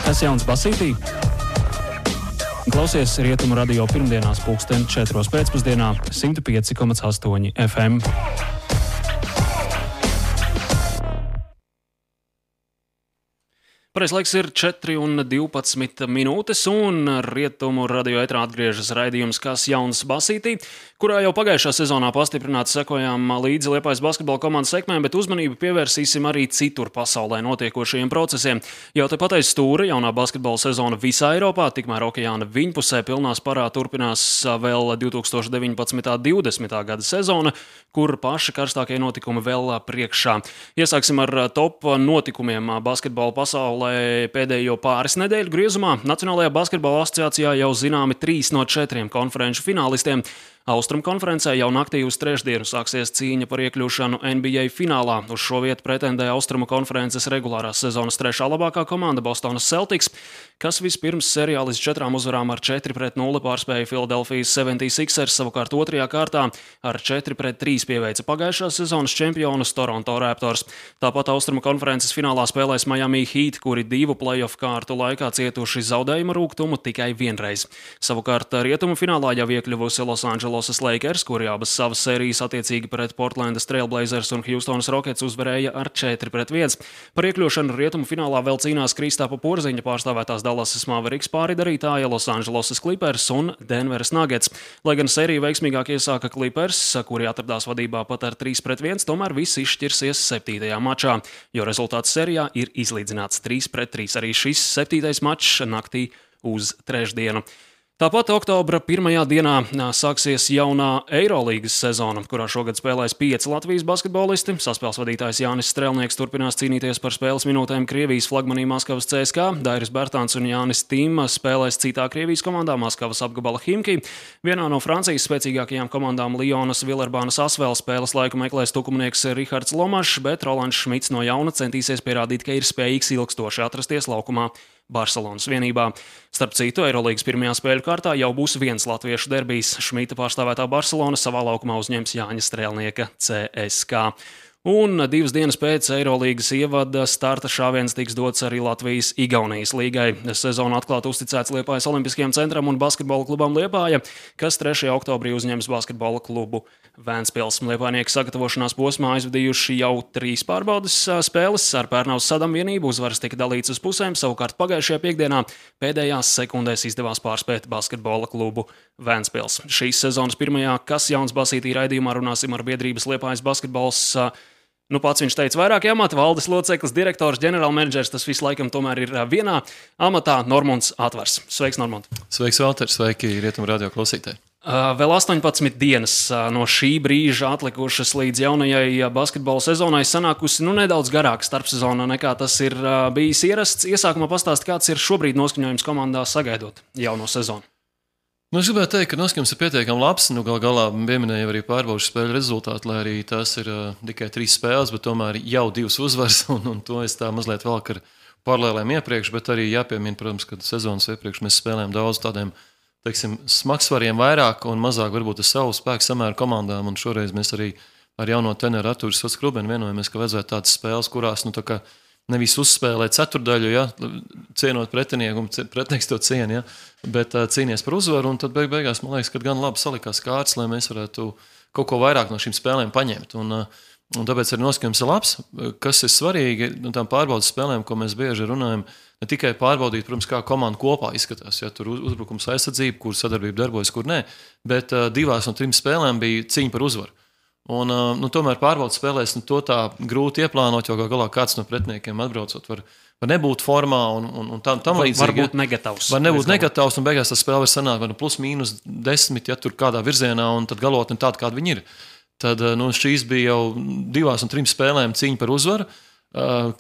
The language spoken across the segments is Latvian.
Kas jauns Basītī? Klausies Rietumu radio pirmdienās 4:00 pēcpusdienā 105,8 FM. Pareiz laiks ir 4:12 minūtes, un Rietumu radio ētrā atgriežas raidījums Kas jauns Basītī, kurā jau pagājušā sezonā pastiprināti sekojām līdzi Liepājas basketbola komandas sekmēm, bet uzmanību pievērsīsim arī citur pasaulē notiekošajiem procesiem. Jau tepat aiz stūra jaunā basketbola sezona visā Eiropā, tikmēr okeāna viņpusē pilnā sparā turpinās vēl 2019.–20. gada sezona, kur paši karstākie notikumi vēl priekšā. Iesāksim ar top notikumiem basketbola pasaulē. Pēdējo pāris nedēļu griezumā Nacionālajā basketbola asociācijā jau zināmi 3 no 4 konferenču finālistiem. Austrumu konferencē jau naktī uz trešdienu sāksies cīņa par iekļūšanu NBA finālā. Uz šo vietu pretendē Austrumu konferences regulārās sezonas 3. labākā komanda Bostonas Celtics, kas vispirms serijā līdz 4 uzvarām ar 4-0 pārspēja Philadelphijas 76ers, savukārt 2. kārtā ar 4-3 pieveica pagājušās sezonas čempionus Toronto Raptors. Tāpat Austrumu konferences finālā spēlēs Miami Heat, kuri 2 playoff kārtu laikā cietuši zaudējuma rūgtumu tikai vienreiz. Savukārt rietumu finālā jau iekļuvusi Los Angeles Lakers, kuri abas savas sērijas attiecīgi pret Portlandas Trail Blazers un Houstonas Rockets uzvarēja ar 4-1. Par iekļūšanu rietumu finālā vēl cīnās Kristāpa Porziņa pārstāvētās Dallasas Mavericks pāridarītāja, Los Angeles Clippers un Denveras Nuggets. Lai gan sēriju veiksmīgāk iesāka Clippers, kuri atradās vadībā pat ar 3-1, tomēr viss izšķirsies 7. mačā, jo rezultāts sērijā ir izlīdzināts 3-3. Arī šis 7. mačs naktī uz trešdienu. Tāpat oktobra 1. dienā sāksies jaunā Eirolīgas sezona, kurā šogad spēlēs 5 Latvijas basketbolisti. Saspēles vadītājs Jānis Strelnieks turpinās cīnīties par spēles minūtēm Krievijas flagmanī Maskavas CSKA. Dairis Bērtāns un Jānis Tīma spēlēs citā Krievijas komandā Maskavas apgabala Himki. Vienā no Francijas spēcīgākajām komandām Lionas Villerbānas Asvēl spēles laiku meklēs tukumnieks Rihards Lomašs, bet Rolands Šmits no jauna centīsies pierādīt, ka ir spējīgs ilgstoši atrasties laukumā Barcelonas vienībā. Starp citu, Eirolīgas pirmajā spēļu kārtā jau būs viens latviešu derbijs. Šmita pārstāvētā Barcelona savā laukumā uzņems Jāņa Strēlnieka CSKA. Un 2 dienas pēc Eirolīgas ievada starta šāviens tiks dots arī Latvijas-Igaunijas līgai. Sezonu atklāti uzticēts Liepājas Olimpiskajam centram un basketbola klubam Liepāja, kas 3. oktobrī uzņems basketbola klubu Vēnspils. Liepājnieki sagatavošanās posmā aizvadījuši jau 3 pārbaudes spēles. Ar Pērnaus Sadam vienību uzvaras tika dalīts uz pusēm, savukārt pagājušajā piekdienā pēdējās sekundēs izdevās pārspēt basketbola klubu Vēnspils. Šīs sezonas pirmajā Kas jauns Basītī raidījumā runāsim ar biedrības Liepājas basketbols. Pats viņš teica vairāki amati, valdes loceklis, direktors, ģenerālmenedžers, tas viss laikam tomēr ir vienā amatā Normunds Atvars. Sveiks, Normund! Sveiks, Valter! Sveiki, Rietumu radio klausītāji! Vēl 18 dienas no šī brīža atlikušas līdz jaunajai basketbola sezonai, sanākusi nedaudz garāka starpsezona nekā tas ir bijis ierasts. Iesākumā pastāst, kāds ir šobrīd noskaņojums komandā sagaidot jauno sezonu. Es gribētu teikt, ka noskaņojums ir pietiekami labs. Galā pieminēju arī pārbaudas spēļu rezultātu, lai arī tās ir tikai 3 spēles, bet tomēr jau 2 uzvaras, un to es tā mazliet velku ar paralēlēm iepriekš, bet arī jāpiemina, protams, ka sezonas iepriekš mēs spēlējām daudz tādiem smagsvariem vairāk un mazāk varbūt ar savu spēku samēru komandām, un šoreiz mēs arī ar jauno treneru Artūru Sots-Krubeni vienojamies, ka vajadzētu tādas spēles, kurās nevis uzspēlēt ceturdaļu, cienot pretinieku, un pretinieks to ciena, bet cīnies par uzvaru, un tad beigās, man liekas, ka gan labi salikās kārtas, lai mēs varētu kaut ko vairāk no šīm spēlēm paņemt. Un tāpēc arī noskaņojums ir labs. Kas ir svarīgi no tām pārbaudas spēlēm, ko mēs bieži runājam, ne tikai pārbaudīt, protams, kā komanda kopā izskatās, tur uzbrukums aizsardzība, kur sadarbība darbojas, kur nē, bet 2 no 3 spēlēm bija cīņa par uzvaru. Un tomēr pārbaudas spēlēs to tā grūti ieplānot, jo galā kāds no pretiniekiem atbraucot var nebūt formā un tam līdzīgi. Varbūt negatavs. Var nebūt negatavs, un beigās tas spēle var sanākt +/-10, tur kādā virzienā, un tad galotni tāda, kāda viņi ir. Tad šīs bija jau 2 no 3 spēlēm cīņa par uzvaru,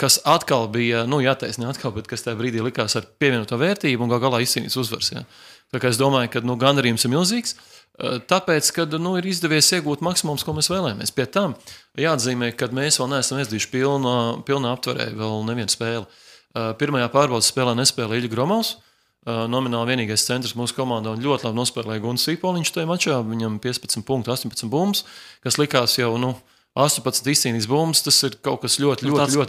kas atkal bija, jātaisnē atkal, bet kas tajā brīdī likās ar pievienoto vērtību un galā izcīnīts uzvars. Ja. Tā kā es domāju, ka gandarījums ir milzīgs, tāpēc, ka ir izdevies iegūt maksimums, ko mēs vēlējāmies. Pie tam jāatzīmē, ka mēs vēl neesam izdījuši pilnā aptverē vēl nevienu spēli. Pirmajā pārbaudas spēlē nespēlēja Ilja Gromovs, nomināli vienīgais centrs mūsu komandā, un ļoti labi nospēlēja Gunts Sīpoliņš tajā mačā, viņam 15 punkti, 18 bumbas, kas likās jau, 18 izcīnītas bumbas, tas ir kaut kas ļoti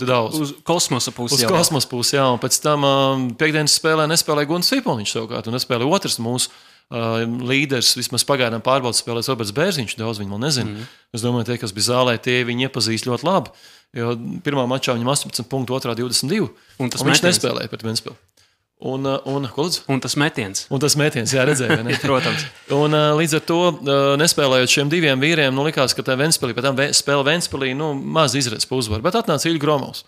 daudz. Uz kosmosa pusi. Uz kosmosa pusi, jā. Un pēc tam piekdienas spēlē nespēlēja Gunts Cipolniņš savukārt, un nespēlēja otrs mūsu līderis, vismaz pagaidām pārbaudas spēlēs Roberts Bērziņš, daudz viņi vēl nezina. Es domāju, tie, kas bija zālē, tie viņi iepazīst ļoti labi, jo pirmā mačā viņam 18 punktu, otrā 22, un viņš nespēlēja pret Ventspili. Un tas metiens. Un tas metiens, jā, redzēja. Protams. Un līdz ar to, nespēlējot šiem diviem vīriem, likās, ka tā Ventspilī, pēc tam spēle Ventspilī, maz izredz pa uzvaru. Bet atnāca Ilja Gromovs.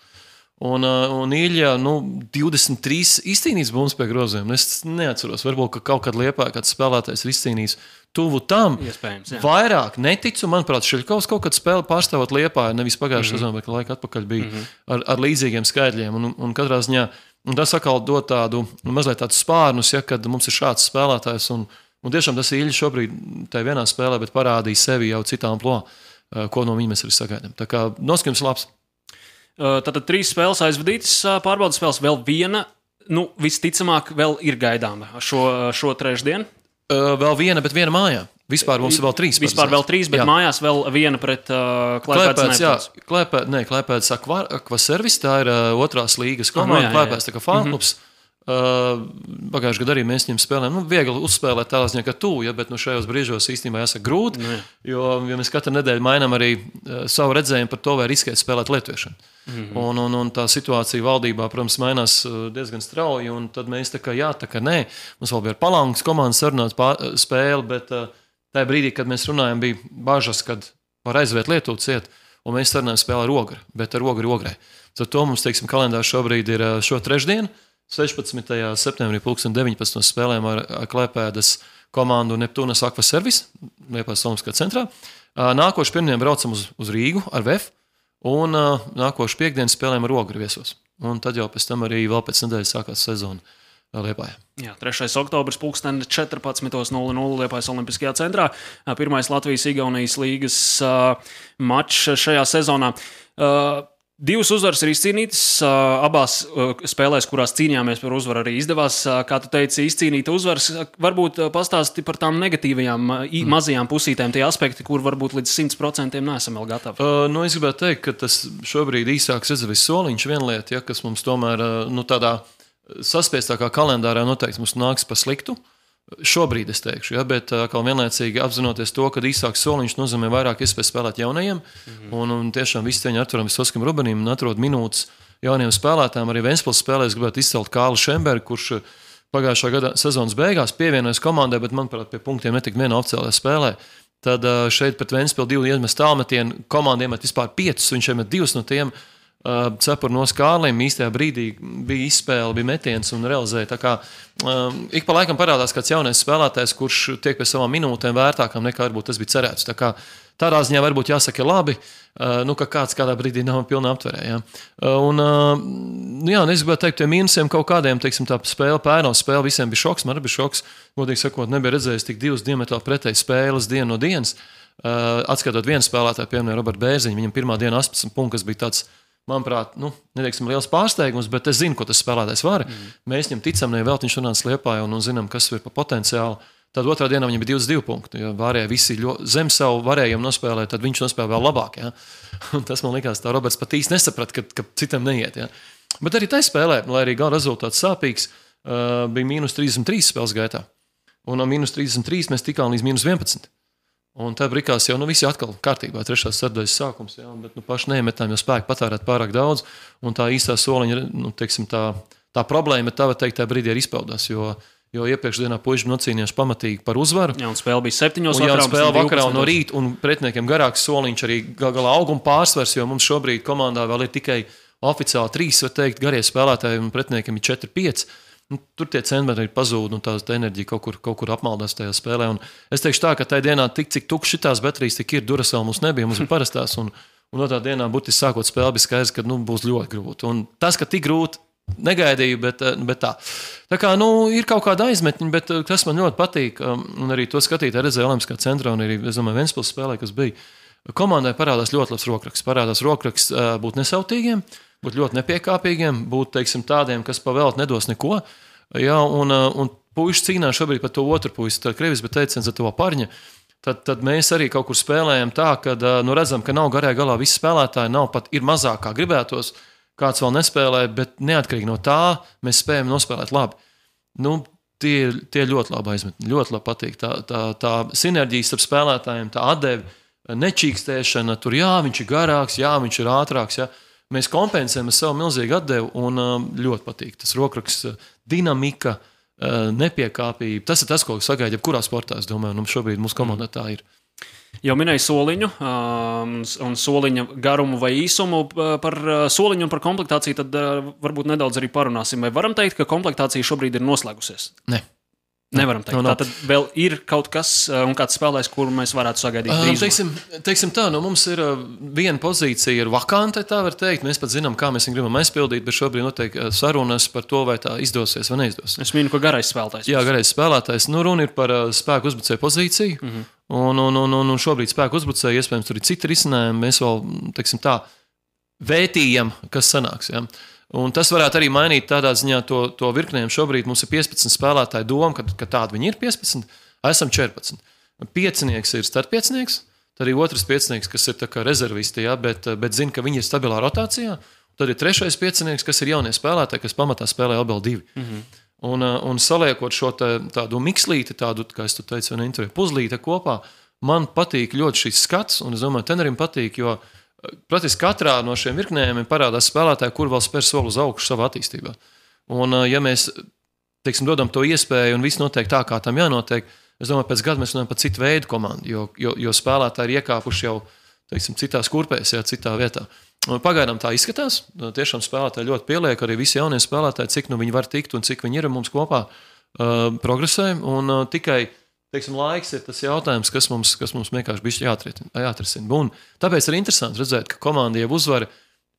Un Ilja, 23 izcīnījis bumbas pie groziem. Es neatceros, varbūt, ka kaut kad Liepājā kāds spēlētājs ir izcīnījis tuvu tam. Iespējams, jā. Vairāk neticu, manuprāt, Šiļkovs kaut kad spēle pārstāvot Liepāju, nevis pagājušā sezonā, bet laika atpakaļ bija ar līdzīgiem skaitļiem. Un katrā ziņā, un tas atkal dod mazliet tādus spārnus, ja, kad mums ir šāds spēlētājs. Un tiešām tas Ilja šobrīd tajā vienā spēlē, bet parādīja sevi jau citā amplitūdā, ko no viņa mēs arī sagaidām. Tā kā noskaņojums labs. Tātad 3 spēles aizvadītas, pārbaudas spēles vēl viena, visticamāk, vēl ir gaidāma šo trešdienu. Vēl viena, bet viena mājā. Vispār mums ir vēl 3. Vispār vēl 3, bet jā. Mājās vēl viena pret Klaipēdas. Klaipēdas Akvaservis, tā ir otrās līgas komanda. Klaipēdas tā kā fānklubs. Pagājušajā gadā arī mēs viņam spēlējām. Viegli uzspēlēt tādā ziņā, ka tu, ja, bet šajos brīžos īstenībā jāsaka grūti, jo mēs katru nedēļu mainām arī savu redzējumu par to, vai riskēt spēlēt lietuviešanu. Un tā situācija valdībā, protams, mainās diezgan strauji, un tad mēs tā kā nē. Mums vēl bija ar Palangas komandu sarunāt spēli, bet tajā brīdī, kad mēs runājam, bija bažas, kad var aizviet Lietuvu ciet, un mēs sarunājam spēli ar Ogri, bet ar Ograi. Tad to mums, teiksim, kalendārs šobrīd ir šo trešdienu, 16. septembrī 19. spēlēm ar Klaipēdas komandu Neptūnas Akvaservis, Liepājas Olimpiskā centrā. Nākošu pirmdien braucam uz Rīgu ar VF, un nākošu piekdienu spēlēm ar Ogri viesos. Un tad jau pēc tam arī vēl pēc nedēļas sākās sezona Liepājā. Jā, 3. oktobris 14:00 Liepājas Olimpiskajā centrā. Pirmais Latvijas-Igaunijas līgas mačs šajā sezonā. 2 uzvaras ir izcīnītas, abās spēlēs, kurās cīnījāmies par uzvaru, arī izdevās, kā tu teici, izcīnīt uzvaras. Varbūt pastāsti par tām negatīvajām, mazajām pusītēm, tie aspekti, kur varbūt līdz 100% neesam vēl gatavi. Es gribētu teikt, ka tas šobrīd īsāks Ezevis soliņš viena lieta, ja, kas mums tomēr tādā saspiestākā kalendārā noteikti mums nāks pa sliktu. Šobrīd es teikšu, ja, bet vienlaicīgi apzinoties to, ka īsāks soliņš nozīmē vairāk iespēju spēlēt jaunajiem, un tiešām visi cieņi Arturam Visoskam Rubenim un atrod minūtes jauniem spēlētājiem. Arī Ventspils spēlēs gribētu izcelt Kālu Šembergu, kurš pagājušā gada sezonas beigās pievienojas komandai, bet, manuprāt, pie punktiem netika vienā oficiālajā spēlē. Tad šeit pret Ventspilu 2 iemest tālmetienu, komanda iemet vispār 5, viņš iemet 2 no tiem. Cepur no Skārlim īstajā brīdī bija izspēle, bija metiens un realizēja. Tā kā ik pa laikam parādās kāds jaunais spēlētājs, kurš tiek pie savām minūtēm vērtākām nekā varbūt tas bija cerēts. Tā kā tādā ziņā varbūt jāsaka labi, ka kāds kādā brīdī nav pilnā aptverē. Ja. Es gribētu teikt, tie mīnusiem kaut kādiem, teiksim, tā spēle, pērnos spēle, visiem bija šoks, man arī bija šoks. Godīgi sakot, nebija redzējis tik 2 diametrāli pretēji spēles dienu no dienas. Atskatot vienu spēlētāju, piemēram, Robertu Bērziņu, viņam pirmā diena 18 punkti, kas bija tāds, manuprāt, neteiksim liels pārsteigums, bet es zinu, ko tas spēlētājs var. Mēs viņam ticam, nevēl viņš runāts Liepājā un zinām, kas ir pa potenciālu. Tad otrā dienā viņam bija 22 punkti. Ja varēja visi zem savu varējumu nospēlēt, tad viņš nospēlē vēl labāk. Ja? Un tas man likās, tā Roberts pat īsti nesaprat, ka citam neiet. Ja? Bet arī tai spēlē, lai arī gala rezultāts sāpīgs, bija -33 spēles gaitā. Un no -33 mēs tikām līdz -11. Un tā brīkās jau visi atkal kārtībā, 3. sadaļas sākums, jā, bet paši neiemetām, jo spēku patērēt pārāk daudz, un tā īstā soliņa, teiksim, tā problēma, tā var teikt, tā brīdī ir izpaudās, jo iepriekšdienā puiši nocīnījās pamatīgi par uzvaru. Jā, un spēle bija 7. vakarā. Un spēle vakarā un no rīta, un pretiniekiem garāks soliņš arī galā auguma pārsvars, jo mums šobrīd komandā vēl ir tikai oficiāli 3, var teikt, garie spēlētāji, un pretiniekiem ir 4-5. Tur tie centimetri ir pazūdi, un tā enerģija kaut kur apmaldās tajā spēlē. Un es teikšu tā, ka tajā dienā tik, cik tukšs šitās baterijas tik ir, Duracell mums nebija, mums bija parastās, un no tā dienā būtiski sākot spēli bija skaidrs, ka būs ļoti grūti. Un tas, ka tik grūti, negaidīju, bet tā. Tā kā, ir kaut kāda aizmetņa, bet tas man ļoti patīk, un arī to skatīt redzēju Olimpiskā centrā, un arī, es domāju, Ventspils spēlē, kas bija. Komandai parādās ļoti labs rokraksts. Parādās rokraksts būt nesautīgiem, būt ļoti nepiekāpīgiem, būt, teiksim, tādiem, kas pavēlt nedos neko. Jā, un puiši cīnās šobrīd par to otru puisi, tā Krievis, bet teiciens ar to Parņa. tad mēs arī kaut kur spēlējam tā, ka redzam, ka nav garajā galā visi spēlētāji, ir mazāk kā gribētos, kāds vēl nespēlē, bet neatkarīgi no tā mēs spējam nospēlēt labi. Tie ļoti labi aizmetni, ļoti labi patīk. Tā sinerģija starp spēlētājiem, tā atdeve, nečīkstēšana, tur viņš ir garāks, viņš ir ātrāks. Mēs kompensējam ar savu milzīgu atdevu un ļoti patīk. Tas rokraksts, dinamika, nepiekāpība. Tas ir tas, ko sagaida jebkurā sportā, es domāju, šobrīd mūsu komandā tā ir. Jau minēju soliņu un soliņa garumu vai īsumu. Par soliņu un par komplektāciju tad varbūt nedaudz arī parunāsim. Vai varam teikt, ka komplektācija šobrīd ir noslēgusies? Ne. Nevaram teikt. Tātad vēl ir kaut kas un kāds spēlēs, kuru mēs varētu sagaidīt drīzumā. Teiksim tā, mums ir viena pozīcija ir vakante, tā var teikt. Mēs pat zinām, kā mēs viņu gribam aizpildīt, bet šobrīd notiek sarunas par to, vai tā izdosies vai neizdosies. Es minu, ka garais spēlētājs. Jā, garais spēlētājs. Runa ir par spēku uzbrucēju pozīciju. Un šobrīd spēku uzbrucēju, iespējams, tur ir citi risinājumi. Mēs vēl, teiksim tā, vētījam, kas sanāks. Ja? Un tas varētu arī mainīt tādā ziņā to virknējumu. Šobrīd mums ir 15 spēlētāji doma, ka tādi viņi ir 15, esam 14. Piecinieks ir startpiecinieks, tad arī otrs piecinieks, kas ir tā kā rezervisti, ja, bet zina, ka viņi ir stabilā rotācijā. Tad ir trešais piecinieks, kas ir jaunie spēlētāji, kas pamatā spēlē ABL2. Un saliekot šo tādu mikslīti, tādu, kā es teicu, puzlīti kopā, man patīk ļoti šis skats, un es domāju, trenerim patīk, jo praktiski katrā no šiem virknējumiem parādās spēlētāji, kur vēl spēr soli uz augšu savā attīstībā. Un ja mēs, teiksim, dodam to iespēju un viss notiek tā, kā tam jānotiek, es domāju, pēc gada mēs runājam par citu veidu komandu, jo spēlētāji ir iekāpuši jau, teiksim, citās kurpēs, citā vietā. Un pagaidām tā izskatās, tiešām spēlētāji ļoti pieliek, arī visi jaunie spēlētāji, cik viņi var tikt un cik viņi ir mums kopā progresē, un tikai teiksim, laiks ir tas jautājums, kas mums vienkārši bišķi jāatrisina. Un tāpēc ir interesanti redzēt, ka komanda jau uzvar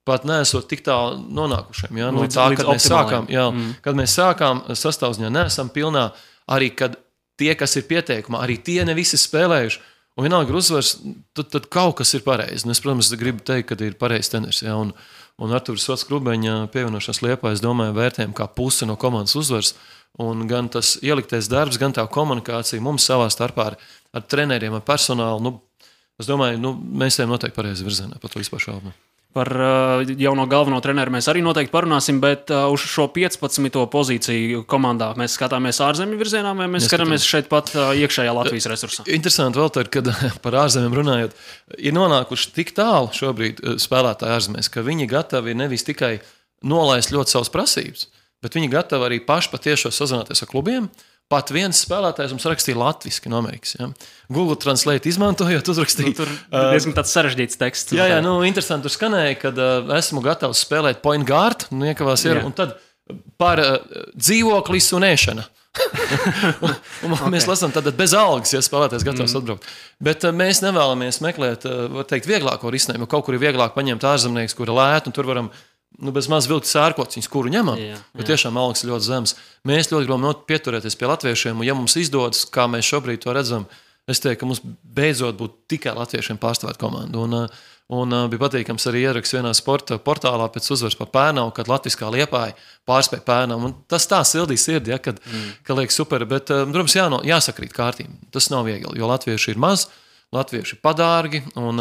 pat neesot tik tālu nonākušiem. Ja? No tā, kad mēs sākām sastāvziņā, neesam pilnā, arī kad tie, kas ir pieteikumā, arī tie ne visi spēlējuši. Un vienalga ir uzvars, tad kaut kas ir pareizi. Es, protams, gribu teikt, ka ir pareizs treneris. Ja? Un Artūrs Sots Krubeņa pievienošanās Liepā, es domāju, vērtējam kā pusi no komandas uzvars. Un gan tas ieliktais darbs, gan tā komunikācija mums savā starpā ar treneriem, ar personālu. Es domāju, mēs ejam noteikti pareizi virzienā, par to vispār šaubu. Par jauno galveno treneru mēs arī noteikti parunāsim, bet uz šo 15. pozīciju komandā mēs skatāmies ārzemju virzienā, vai mēs skatāmies šeit pat iekšējā Latvijas resursā? Interesanti vēl tad, kad par ārzemēm runājot, ir nonākuši tik tālu šobrīd spēlētāji ārzemēs, ka viņi gatavi nevis tikai nolaist ļoti savas prasības, bet viņi gatavi arī paši patiešo sazināties ar klubiem. Pat viens spēlētājs mums rakstīja latviski no Amerikas. Ja? Google Translate izmantojot, uzrakstīja. Tur diezgan tāds sarežģīts teksts. Jā, interesanti tur skanēja, kad esmu gatavs spēlēt point guard, iekavās ir, un tad par dzīvoklis un ēšana. Mēs lasām tātad bez algas, ja spēlētājs gatavs atbraukt. Bet mēs nevēlamies meklēt, var teikt, vieglāko risinājumu. Kaut kur ir vieglāk paņemt ārzemnieks, kur ir lēt, un tur varam bez maz vilkt sērkociņus, kuru ņemam, jo tiešām algas ir ļoti zemes. Mēs ļoti gribam pieturēties pie latviešiem, un ja mums izdodas, kā mēs šobrīd to redzam, es teiktu, ka mums beidzot būtu tikai latviešiem pārstāvēt komandu. Un bija patīkams arī ieraksts vienā sporta portālā pēc uzvaras par Pērnavu, kad latviskā Liepāja pārspēja Pērnavu. Un tas tā sildīja sirdi, ka liek super, bet, protams, jāsakrīt kārtīm. Tas nav viegli, jo latvieši ir maz, latvieši ir padārgi, un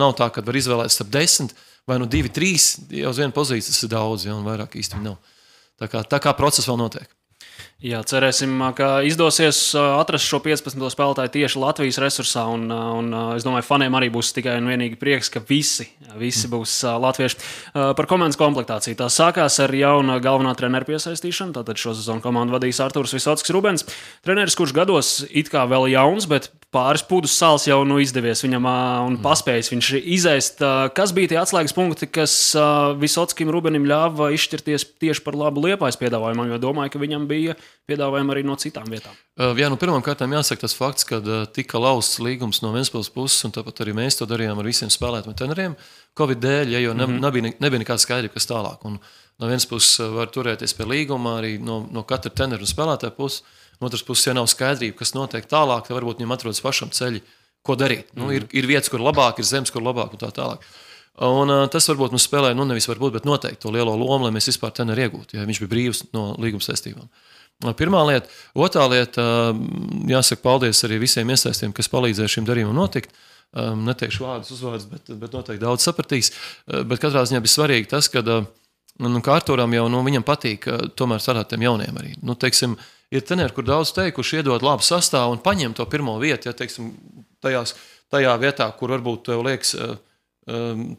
nav tā, kad var izvēlēt starp 10, vai 2, 3, jau uz vienu pozīciju tas ir daudz, un vairāk īsti nav. Tā kā process vēl notiek. Jā, cerēsim, ka izdosies atrast šo 15. spēlētāju tieši Latvijas resursā, un es domāju, faniem arī būs tikai un vienīgi prieks, ka visi būs latvieši. Par komandas komplektāciju. Tā sākās ar jaunu galvenā trenera piesaistīšanu, tātad šo sezonu komandu vadīs Artūrs Visockis Rubens. Treneris, kurš gados it kā vēl jauns, bet pāris pūdus sāls jau izdevies viņam un paspējis viņš izēst. Kas bija tie atslēgas punkti, kas Visockim Rubenim ļāva izšķirties tieši par labu Liepājas piedāvājumam, jo domāju, ka viņam bija piedāvājumi arī no citām vietām? Jā, pirmām kārtām jāsaka tas fakts, ka tika lausts līgums no Ventspils puses, un tāpat arī mēs to darījām ar visiem spēlētājiem treneriem. Covid dēļ, jo nebija nekāda skaidrība, kas tālāk. Un no vienas puses var turēties pie līguma, arī no katra trenera un spēlētāja puses. No otras puses, ja nav skaidrība, kas notiek tālāk, tad varbūt viņam atrodas pašam ceļi, ko darīt. Ir vietas, kur labāk, ir zemes, kur labāk un tā tālāk. Un tas varbūt mums spēlēja, nevis varbūt, bet noteikti to lielo lomu, lai mēs vispār treneri iegūtu, ja viņš bija brīvs no līguma saistībām. Pirmā lieta. Otrā lieta, jāsaka paldies arī visiem iesaistiem, kas palīdzēja šim darījumam notikt. Neteikšu vārdus, uzvārdus, bet noteikti daudz sapratīs. Bet katrā ziņā bija svarīgi tas, ka Arturam jau viņam patīk tomēr strādāt tiem jauniem arī. Teiksim, ir treneri, kur daudz teikuši iedot labu sastāvu un paņem to pirmo vietu, ja teiksim, tajā vietā, kur varbūt tev liekas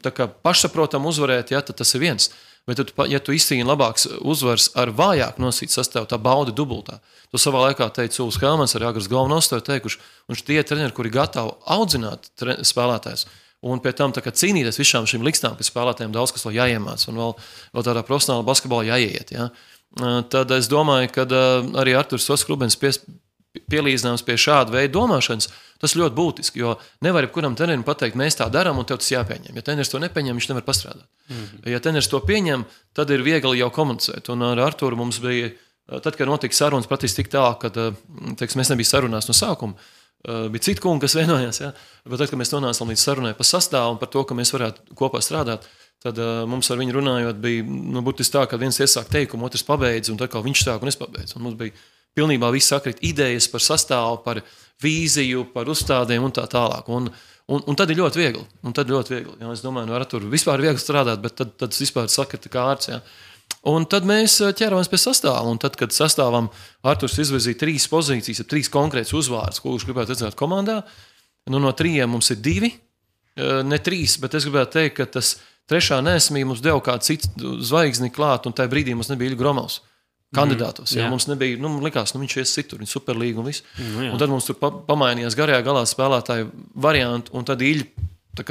tā kā pašsaprotam uzvarēt, ja, tad tas ir viens. Bet, ja tu izcīni labāks uzvars ar vājāk nosīt sastāvu, tā bauda dubultā. To savā laikā teica Uls Helmans, arī Agrs Galvanovs to teikuši, un tie treneri, kuri gatavi audzināt spēlētājus, un pie tam cīnīties visām šīm likstām, ka spēlētājiem daudz kas vēl jāiemāc, un vēl tādā profesionālā basketbolā jāiet. Ja? Tad es domāju, ka arī Arturs Rubens pielīdzināms pie šāda veida domāšanas, tas ļoti būtiski, jo nevar jebkuram trenerim pateikt, mēs tā darām un tev tas jāpieņem. Ja treneris to nepieņem, viņš nevar pastrādāt. Ja treneris to pieņem, tad ir viegli jau komunicēt. Un ar Arturu mums bija, tad, kad notika sarunas, praktiski tik tālāk, kad mēs nebija sarunās no sākuma, bija citi kungi, kas vienojās, ja? Bet tad, kad mēs nonācām līdz sarunai par sastāvu un par to, ka mēs varētu kopā strādāt, tad mums ar viņu runājot bija būtiski tā, ka viens iesāk teikumu, otrs pabeidz, un tad kā viņš sāk un es pabeidzu. Un mums bija pilnībā viss sakrit idejas par sastāvu, par vīziju, par uzstādēm un tā tālāk. Un tad ir ļoti viegli. Ja, es domāju, ar Arturu vispār ir viegli strādāt, bet tad tas vispār sakrita kārts. Ja. Un tad mēs ķeramies pie sastāva. Un tad, kad sastāvam Arturs izvirzīja 3 pozīcijas, 3 konkrētas uzvārdas, ko viņš gribētu redzēt komandā, no 3 mums ir 2, ne 3, bet es gribētu teikt, ka tas 3. neesmība mums deva kādu citu zvaigzni klāt, un tajā brīdī mums nebija Iļa Gromovs kandidātos. Ja, mums nebija, likās, viņš ies citur, viņa superlīga un viss. Un tad mums tur pamainījās garajā galā spēlētāju variantu, un tad Iļa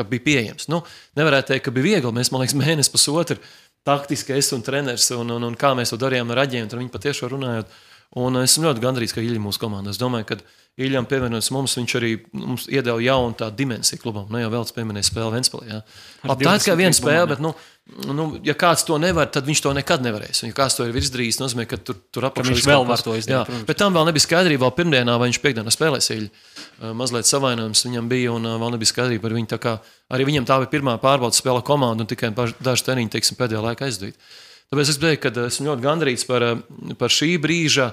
bija pieejams. Nevarētu teikt, ka bija viegli. Mēs, man liekas, mēnesi pusotru taktiski es un treneris, un kā mēs to darījām ar Aģiem, un viņi patiešām runājot. Un es esmu ļoti gandrīz, ka Iļa mūsu komandā. Es domāju, ka Iļam pievienojas mums, viņš arī mums iedeva jaunu tādu dimensiju klubam. Jau vēl pieminēja spēli Ventspilī. Ja. Tā ir tikai viena spēle, bet, ja kāds to nevar, tad viņš to nekad nevarēs. Un, ja kāds to ir izdarījis, nozīmē, ka tur apakšā viņš vēl var to izdarīt. Jā, bet tam vēl nebija skaidrība vēl pirmdienā, vai viņš piekdienā spēlēs Iļu. Mazliet savainojums viņam bija, un vēl nebija skaidrība par viņu. Tā kā arī viņam tā bija pirmā pārbaudas spēle komanda, un tikai daži treniņi, teiksim, pēdējā laikā aizdīt. Tāpēc es teiktu, ka esmu ļoti gandrīz par šī brīža,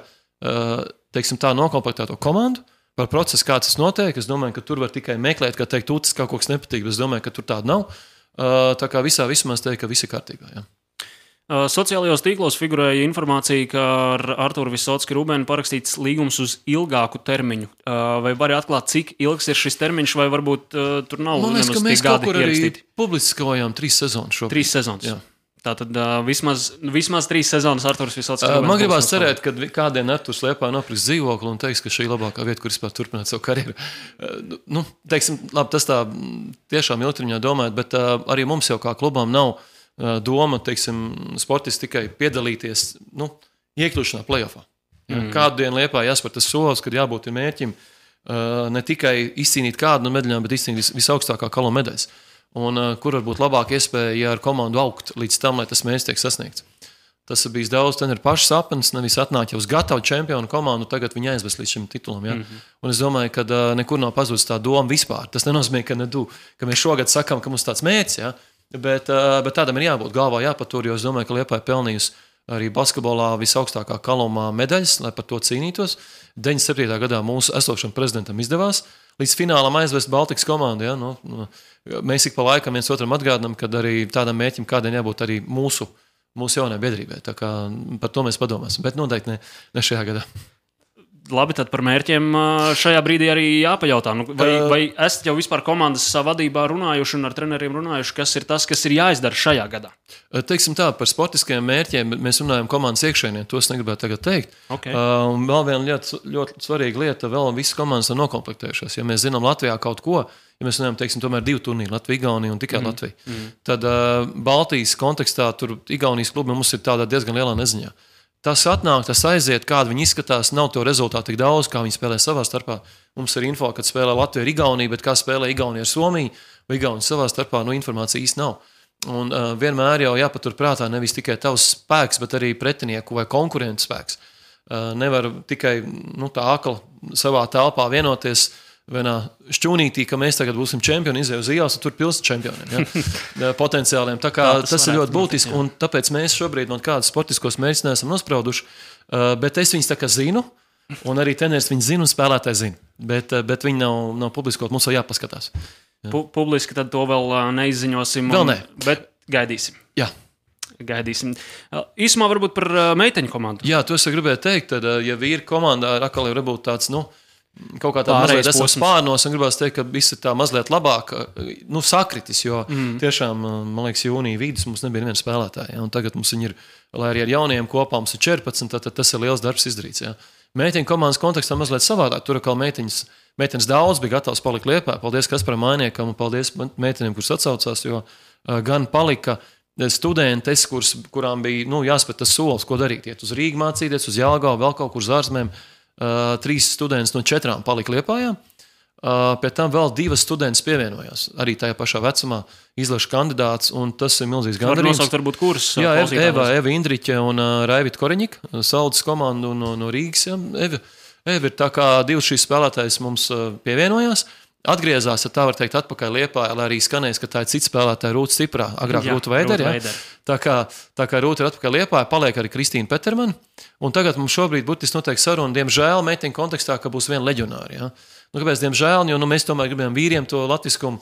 teiksim, tā nokomplektēto komandu, par procesu, kāds tas notiek. Es domāju, ka tur var tikai meklēt, kā teikt, ucis kaut kas nepatīk, bet es domāju, ka tur tāda nav. Tā kā visā vismā es teiktu, ka viss ir kārtībā. Jā. Sociālajos tīklos figurēja informācija, ka ar Arturu Visocki Rubēnu parakstīts līgums uz ilgāku termiņu. Vai vari atklāt, cik ilgs ir šis termiņš, vai varbūt tur nav nemaz tik gadi ierakstīti? Man liekas, ka mēs kaut kur arī publiskojām 3 sezonas šobrīd. 3 sezonas. Jā. Tātad vismaz 3 sezonas Arturs Visocki Rubēns. Man gribās cerēt, ka kādien Arturs Liepājā nopirks dzīvokli un teiks, ka šī ir labākā vieta, kur vispār turpināt savu karjeru. Teiksim, labi, tas tā tiešām ilgtermiņā domājot, bet arī mums jau kā klubām nav doma, teiksim, sportisti tikai piedalīties, iekļūšanā play-offā. Kādu dienu Liepājā jāspēr tas solis, kad jābūt ir mērķim ne tikai izcīnīt kādu no medaļām, bet izcīnīt visaugstākā kalo medaļas. Un kur var būt labāka iespēja, ja ar komandu augt līdz tam, lai tas mērķis tiek sasniegts. Tas ir bijis daudz treneru pašu sapnis, nevis atnāk jau uz gatavu čempionu komandu, tagad viņi aizvest līdz šim titulam. Ja? Un es domāju, ka nekur nav pazudis tā doma vispār. Tas nenozīmē, ka mēs šogad sakām, ka mums tāds mērķis, ja? bet tādam ir jābūt galvā jāpatur, jo es domāju, ka Liepāja pelnījusi arī basketbolā visaugstākā kalumā medaļas, lai par to cīnītos. 97. gadā mūsu esošam prezidentam izdevās līdz finālam aizvest Baltikas komandu. Ja? Mēs ik pa laikam viens otram atgādinām, ka arī tādam mērķim kādiem jābūt arī mūsu jaunai biedrībai. Tā kā par to mēs padomāsim, bet noteikti ne šajā gadā. Labi, tad par mērķiem šajā brīdī arī jāpajautā. Vai esat jau vispār komandas vadībā runājuši un ar treneriem runājuši, kas ir tas, kas ir jāizdara šajā gadā? Teiksim tā, par sportiskajiem mērķiem mēs runājam komandas iekšēnē, to es negribētu tagad teikt. Okay. Un vēl viena ļoti svarīga lieta, vēl visas komandas ir nokomplektējušās. Ja mēs zinām Latvijā kaut ko, ja mēs runājam, teiksim, tomēr 2 turnīri, Latvija, Igaunija un tikai Latvija, tad Baltijas kontekstā tur Igaunijas klubi mums ir tādā diezgan lielā neziņā. Tas atnāk, tas aiziet, kāda viņi izskatās, nav to rezultātu tik daudz, kā viņi spēlē savā starpā. Mums ir info, kad spēlē Latvija ar Igauniju, bet kā spēlē Igaunija ar Somiju vai Igaunija savā starpā, informācija īsti nav. Un vienmēr jau jāpatur prātā nevis tikai tavs spēks, bet arī pretinieku vai konkurentu spēks. Nevar tikai tā akli savā telpā vienoties, vienā šķūnītī, ka mēs tagad būsim čempioni, izēju uz ielas, un tur pilsēta čempioniem, ja? Potenciāliem. Tā kā tas ir ļoti būtiski, un tāpēc mēs šobrīd no kādas sportiskos mērķus neesam nosprauduši, bet es viņus tā kā zinu, un arī treneris viņus zina un spēlētāji zina, bet viņi nav publiskot, mums vēl jāpaskatās. Ja. Publiski tad to vēl neizziņosim, vēl ne. Bet gaidīsim. Jā. Gaidīsim. Īsumā varbūt par meiteņu komandu. Jā, to es gribēju teikt, tad, ja vīri komandā atkal ir varbūt tāds, kaut kā tāda mazliet esam spārnos, un gribās teikt, ka viss ir tā mazliet labāk, sakritis, jo tiešām, man liekas, jūnija vidus mums nebija neviena spēlētāja, ja, un tagad mums viņi ir, lai arī ar jaunajiem kopā mums ir 14, tad tas ir liels darbs izdarīts, ja. Meiteņu komandas kontekstā mazliet savādāk, tur atkal meiteņas daudz bija gatavs palikt Liepā, paldies Kasparam Mainiekam un paldies meitenēm, kuras atsaucās, jo gan palika studentes, kurām bija, jāspēr tas solis, ko darīt, iet uz Rīgu mācīties, uz Jelgavu, vēl kaut kur uz ārzemēm. 3 students no 4 palika Liepājā, pēc tam vēl 2 studentes pievienojās. Arī tajā pašā vecumā izlaša kandidāts, un tas ir milzīgs gandarījums. Var nosaukt varbūt kurus? Jā, Eva Indriķe un Raivita Koreņika, Saldas komandu no Rīgas. Ja. Eva ir tā kā 2 šīs spēlētājas mums pievienojās. Atgriezās, ja tā var teikt, atpakaļ Liepājā, lai arī skanēs, ka tā ir cits spēlētāja Rūta Stiprā, agrāk Rūta Veidera. Ja? Tā kā Rūta ir atpakaļ Liepājā, paliek arī Kristīna Petermana, un tagad mums šobrīd būtiski notiek saruna, diemžēl, meiteņu kontekstā, ka būs viena leģionāra. Ja? Kāpēc, diemžēl, jo mēs tomēr gribējām vīriem to latviskumu,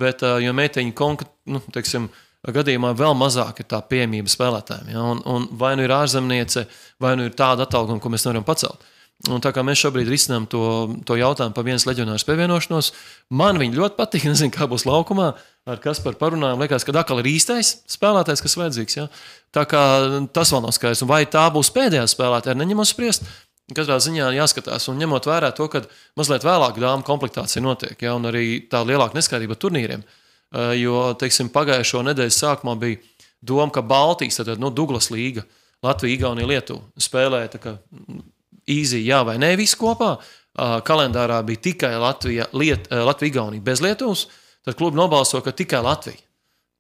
bet jo meiteņu gadījumā vēl mazāk ir tā pieejamība spēlētājiem. Ja? Un vai nu ir ārzemniece, vai nu ir tāda atalgojuma, ko mēs nevaram pacelt. Un tā kā mēs šobrīd risinām to jautājumu par vienas leģionāras pievienošanos, man viņi ļoti patīk, nezinu, kā būs laukumā, ar Kasparu parunājām, liekas, ka atkal ir īstais spēlētājs, kas vajadzīgs. Ja? Tā kā tas vēl nav skaidrs. Un vai tā būs pēdējā spēlētāja, neņemot spriest, katrā ziņā jāskatās. Un ņemot vērā to, ka mazliet vēlāk dāmu komplektācija notiek, ja? Un arī tā lielāka neskaidrība ar turnīriem. Jo, teiksim, pagājušo nedēļas sākumā bija doma, ka Baltijas, tad Douglas līga, Latvija, Igaunija, Lietuva spēlēja tā kā īzī, jā vai nē, visu kopā. Kalendārā bija tikai Latvija, Igaunija bez Lietuvas, tad klubi nobalso, ka tikai Latvija.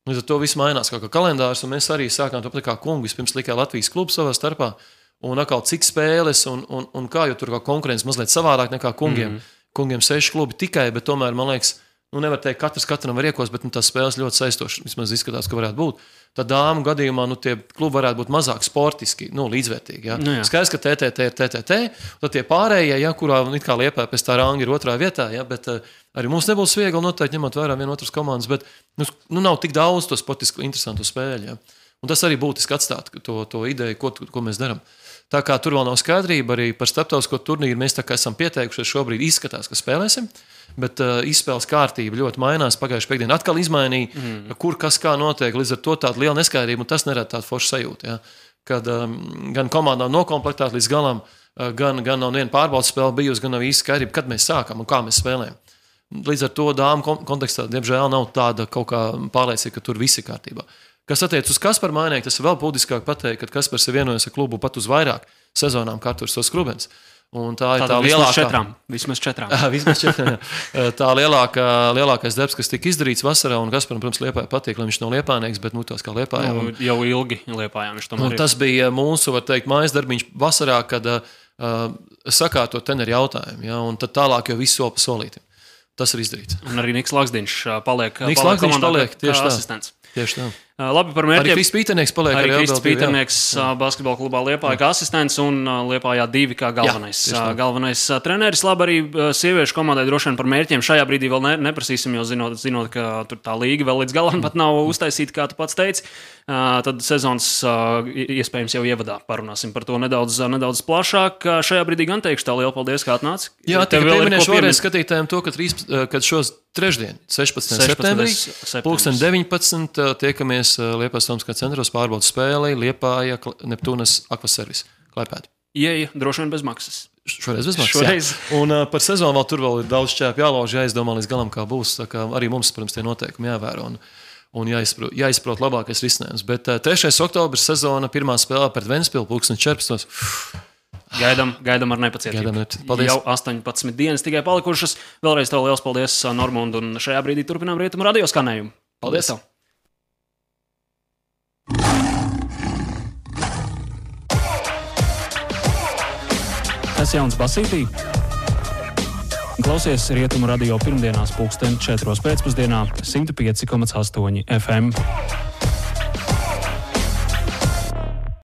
Līdz ar to viss mainās kā kalendārs, un mēs arī sākām to pat kā kungi, vispirms tikai Latvijas klubu savā starpā, un atkal cik spēles, un kā, jo tur kā konkurence mazliet savādāk nekā kungiem. Kungiem 6 klubi tikai, bet tomēr, man liekas, nevar teikt, katram var iekos, bet tās spēles ļoti saistošas, vismaz izskatās, ka varētu būt. Tad dāmu gadījumā tie klubi varētu būt mazāk sportiski, līdzvērtīgi. Ja? Skaidrs, ka TTT ir TTT, tad tie pārējie, ja, kurā it kā Liepā pēc tā ranga ir 2. vietā, ja, bet arī mums nebūs viegli noteikti ņemot vērā vienotras komandas, bet nav tik daudz to sportiski interesantu spēļu. Ja? Un tas arī būtiski atstāt to ideju, ko mēs darām. Tā kā tur vēl nav skaidrība, arī par starptautisko turnīru mēs tā kā esam pieteikušies, šobrīd izskatās, ka spēlēsim, bet izspēles kārtība ļoti mainās. Pagājušajā piekdienā atkal izmainīja, kur kas kā notiek, līdz ar to tāda liela neskaidrība, un tas nerada tādu foršu sajūtu. Ja? Kad gan komanda nav nokomplektēta līdz galam, gan nav viena pārbaudas spēle bijusi, gan nav īsti skaidrība, kad mēs sākam un kā mēs spēlējam. Līdz ar to dāmu kontekstā, diemžēl, nav tāda kaut kā pārliecība, ka tur viss ir kārtībā. Kas attiec uz Kasparu Mainieku, tas ir vēl būtiskāk pateikt, ka Kaspars ir vienojies ar klubu pat uz vairāk sezonām, kā tur tos Skrubens. Un tā ir tā lielākā. Vismaz 4. Vismaz 4. Tā lielākais darbs, kas tika izdarīts vasarā, un Kasparam, protams, Liepāja patīk, lai viņš nav liepājnieks, bet tās kā Liepājā. Jau ilgi Liepājā viņš tomēr ir. Tas bija mūsu, var teikt, mājas darbiņš vasarā, kad sakārtot teneri jautājumu, ja, un tad tālāk jau visu soli pa solītim. Tas ir izdarīts. Un arī Niks Lakstiņš paliek tieši asistents. Tieši tā. Labi par mērķiem. Arī Kristis Pīternieks paliek. Arī Kristis Pīternieks basketbola klubā Liepāja kā asistents un Liepājā 2 kā galvenais treneris. Labi, arī sieviešu komandai droši vien par mērķiem šajā brīdī vēl neprasīsim, jo zinot, ka tur tā līga vēl līdz galam pat nav uztaisīta, kā tu pats teici. Tad sezonas iespējams jau ievadā parunāsim par to nedaudz plašāk. Šajā brīdī gan teikšu tā liela paldies, kā atnāci. Jā, tikai pieminēšu vēlreiz skatītājiem to, ka šos trešdien, 16. septembrī, 19. tiekamies Liepājas Tomskā centros pārbaudas spēlei Liepāja Neptūnas Akvaservis Klaipēda. Ieja droši vien bez maksas. Šoreiz bez maksas. Un par sezonu vēl tur vēl ir daudz šķēpu jālauž, jāizdomā līdz galam, kā būs. Tā kā arī mums, protams, tie noteikumi jāvēro un jāizprot labākais risinājums. Bet 3. oktobris sezona pirmā spēlē pret Ventspilu 14. Gaidām ar nepacietību. Paldies. Jau 18 dienas tikai palikušas. Vēlreiz tev liels paldies, Normund, un šajā brīdī turpinām Rietumu radio skanējumu. Paldies tev! Tas jauns basītī? Klausies Rietumu radio pirmdienās 4:00 pēcpusdienā 105,8 FM.